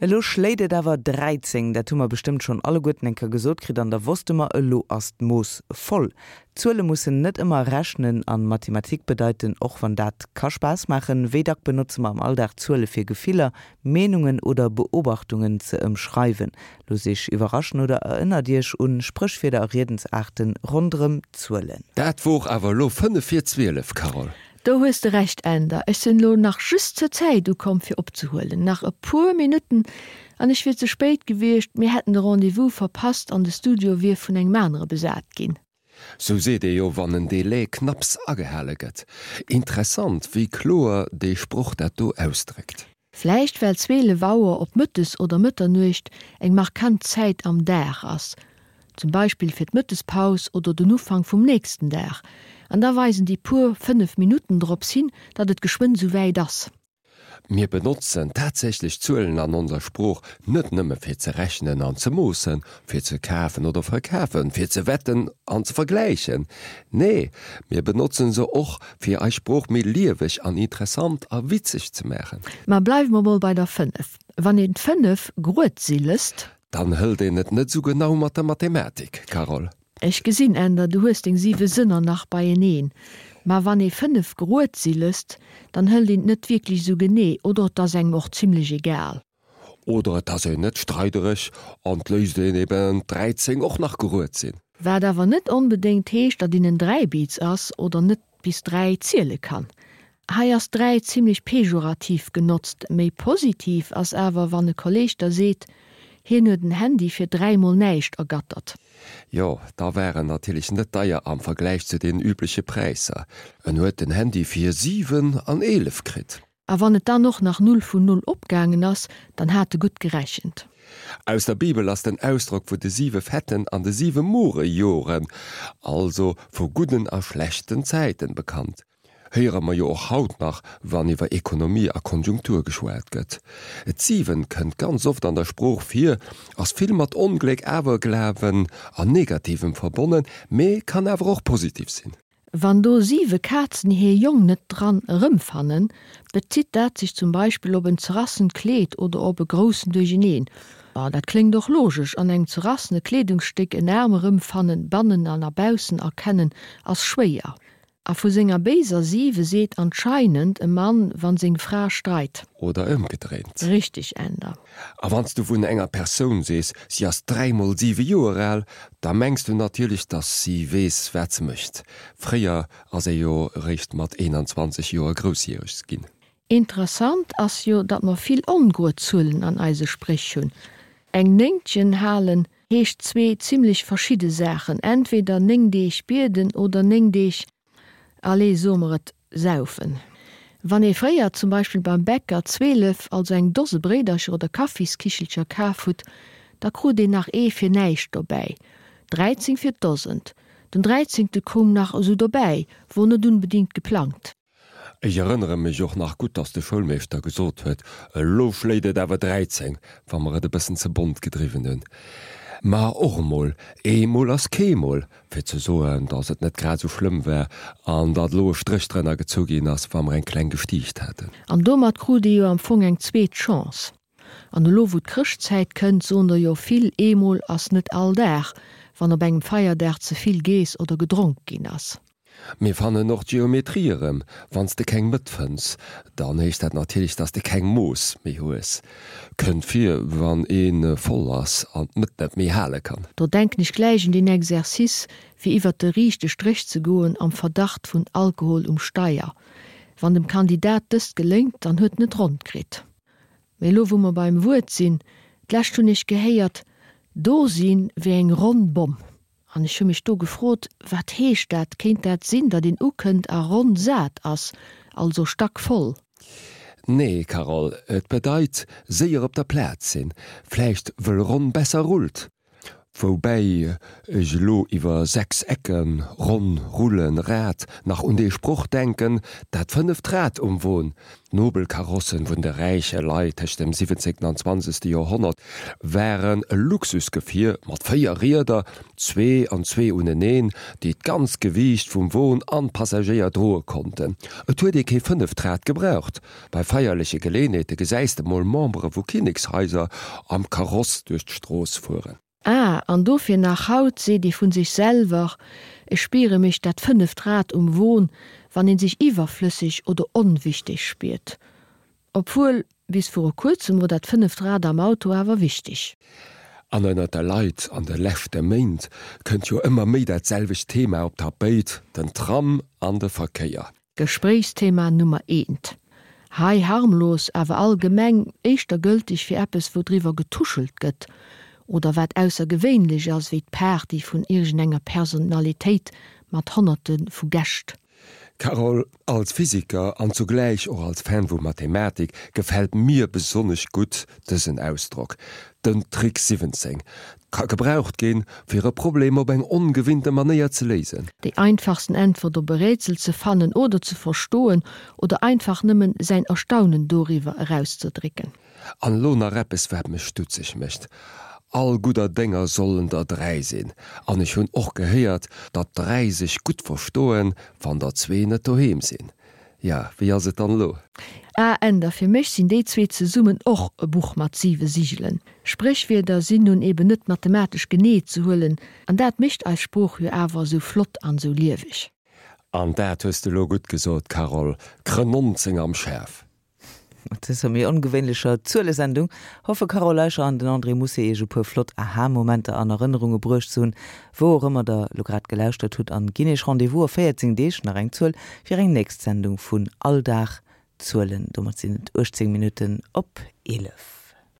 Elo schléit et awer 13, dat hu mer bestëmmt schonn alleguerten eng Kéier gesot kritt an da wosste mer, elo ass d'Mooss voll. Zuele mussen net ëmmer rechnen an Mathematik bedeiten, och wann dat ka Spaass maachen. Wéi dack benotze mer am Alldag Zuele fir Gefiller, Meenungen oder Beobachtungen ze ëmschreiwen? Loosst Iech iwwerraschen oder erënnert Iech un Spréchwierder a Riedensaarten ronderëm Zuelen. Dat wor awer elo 5 vir 12, Carole. Do hues de Recht Änder, ech sinn elo nach just zur Zäit ukomm fir opzehuelen. Nach e puer Minutten an ech wier ze spéit gewiescht, mir hätten de Rendez-vous verpasst an de Studio wier vun engem anere besat ginn. Sou seet ee jo wann en Délai knapps agehale gëtt. Interessant wéi kloer dee Sproch dat do ausdréckt. Vläicht well 12 Auer op Mëttes oder Mëtternuecht eng markant Zäit am Dag ass, zum Beispill fir d'Mëttespaus oder den Ufank vum nächsten Dag, an da weisen déi puer 5 Minutten drops hin, datt et geschwënn sou wäit ass. Mir benotzen tatsächlech Zuelen an onser Sprooch net nëmme fir ze rechnen an ze moossen, fir ze kafen oder verkafen, fir ze wetten an ze vergläichen. Nee, mir benotzen se och, fir eis Sprooch méi lieweg an interessant a witzeg ze maachen. Ma bleiwe mer mol bei der 5. Wann een d'Fënnef grued si lësst. Dann hëlt een et net esou genau mat der Mathematik, Carole. Ech gesinn, Änder, du hues deng siwe Sënner nach beieneen. Ma wann ee 5 grued si lësst, dann hëlt een et net wierklech esou genee, oder et ass engem och zimlech egal. Oder et ass een net streidereg an 't léisst een eben d'13 och nach gerued sinn. Wat awer net onbedéngt heescht, datt een en Dräibiz ass oder net bis 3 ziele kann. Hei ass 3 zimlech pejorativ genotzt, méi positiv ass awer wann e Kolleg der seet, hien huet en Handy fir 3 mol näischt ergattert. Jo, da war en natierlech net deier am Vergläich zu den übleche Präisser. En huet den Handy fir 7 an 11 kritt. A wann et dann och nach Null vun Null opgaangen ass, dann hat e gutt gerechent. Aus der Bibel ass den Ausdrock vu de siwe fetten an de siwe more Joren, also vu gudden a schlechten Zäiten, bekannt. Héiere mer jo och haut nach, wann iwwer Ekonomie a Konjunktur geschwat gëtt. D'Siwen kënnt ganz oft an der Sprooch vir, ass vill mat Ongléck, Awerglawen an Negativem verbonnen, mee kann awer och positiv sinn. Wann do siwe Kazen hir Jong net dran erëmfannen, bezitt dat sech zum Beispill op en zerrassent Kleed oder op e groussen Duercheneen. Ma dat kléngt och logesch, an engem zerrassene Kleedungsstéck en Aarm erëmfannen, bannen an a baussen erkennen, ass schwéier. A vu senger béiser siwe seet anscheinend e Mann, wann seng Fra streit. Oder ëmgedréint. Richteg, Änder. A wann s du vun enger Persoun sees, si ass dräimol siwe Joer al, da mengs du natierlech, datt si weess, wat se mécht. Fréier ass ee jo eréischt mat 21 Joer groussjäreg ginn. Interessant ass jo, datt mer vill ongrued Zuelen an eise Spréch hunn. Eng Néngtchen halen heescht zwee zimmlech verschidde Saachen, entweder 9 Deeg bieden oder 9 Deeg Allez, soe mer et, saufen. Wann ee fréier zum Beispill beim Bäcker 12, also eng Dose Bréidercher oder Kaffiskichelcher kaf hutt, da krut een nach ee fir näischt dobäi, 13 fir d'Dosent. Den dräizéngte koum nach esou dobäi, wor net unbedingt geplangt. Ech erënnere mech och nach gutt, dass de Schoulmeeschter gesot huet, Elo schléit et awer 13, wa mer et e bëssen ze bont gedriwwen hunn. Ma och emol, eemol ass keemol, fir ze soen, dass et net grad esou schlëmm war an datt elo e Stréch drënner gezu ginn ass, wa mer eng kleng gestiicht haten. An domat krut ee jo am Fong eng zweet Chance. An elo wou d'Chrëschtzäit kënnt, soen der jo vill, eemol ass net all Dag, wann op engem Feierdag ze vill geess oder gedronk ginn ass. Mir fannen och d'Geometrie erëm. Wann s de keng Mëtt fënns, dann heescht dat natierlech, dass de keng Mooss méi hues. Kënnt vir, wann ee voll ass an d'Mëtt net méi hale kann. Do denken ech gläich un deen Exercice, fir iwwert de riichte Stréch ze goen am Verdacht vun Alkohol um Steier. Wann dem Kandidat dëst geléngt, dann huet en et ronn kritt. Mee elo wou mer beim Wuert sinn, d'lescht hunn ech gehéiert, do sinn wéi eng ronn Bomm. An ech hu mech do gefrot, Wat heescht dat? Kéint dat sinn, datt een ukënnt a ronn sat ass, also stackvoll? Nee, Carole, et bedeit séier op der Plaz sinn, vläicht wëll ronn besser rullt. Woubäi ech elo iwwer 6 Ecken, ronn, rullen, Rad nach un dee Sproch denken, dat fënneft Rad um Won. D'Nobelkarossen vun de räiche Leit tëscht dem siwwenzéngten an zwanzegste Joerhonnert waren e Luxusgefier mat 4 Rieder, zwee an zwee uneneen, déi d'ganzt Gewiicht vum Won an d'Passagéier droe konnten. Et huet ee kee fënneft Rad gebraucht. Bei feierleche Geleenheete gesäis de mol Membere vu Kinnekshaiser am Kaross duerch d'Strooss fueren. Ah, an dofir nach haut seet ee vun sech selwer, Ech spiere mech dat fënneft Rad um Won, wann een sech iwwerflësseg oder onwichteg spiert. Obwuel, bis viru kuerzem wor dat fënneft Rad am Auto awer wichteg. An ënnert de Leit an de leschte Méint kënnt jo ëmmer méi dat selwecht Thema op d'Tapéit, den Tram an de Verkéier. Gespréichsthema Nummer eent. Hei harmlos, awer allgemeng éischter gëlteg fir eppes wou driwwer getuschelt gëtt oder wat aussergewéinlech ass, wéi d'Party vun iergendenger Personalitéit mat honnerte vu Gäscht. Carole, als Physiker an zugläich och als Fan vu Mathematik gefält mir besonnesch gutt dësen Ausdrock, den Trick 17 ka gebraucht ginn, fir e Problem op eng ongewinnte Manéier ze léisen. Déi einfachsten Äntwert op e Rätsel ze fannen oder ze verstoen oder einfach nëmmen säin Erstaunen doriwwer erauszedrécken. An elo nach eppes wat mech stutzeg mécht, All gudder Dénger sollen der 3 sinn, an ech hunn och gehéiert, datt 3 sech gutt verstoen, wann der zwee net doheem sinn. Ja, wéi ass et dann elo? Ah Änder, fir mech sinn déi zwee zesummen och e Buch mat siwe Sigelen. Spréchwierder sinn nun eben net mathematesch genee ze huelen, an dat mécht eis Sprooch jo awer esou flott an esou lieweg. An dat hues de elo gutt gesot, Carole, Krë 19 am Schäff. Mat dëser méi ongewéinlecher Zuelesendung hoffe Carole Leicher an den André Mousset Iech e puer flott Aha-Momenter an Erënnerunge bruecht ze hunn, wou och ëmmer der lo grad gelauschtert hutt an ginn Iech Rendez-vous a 14 Deeg, nach eng Zuel, fir eng nächst Sendung vun All Dag Zuelen. Domat sinn et 18 Minutten op 11.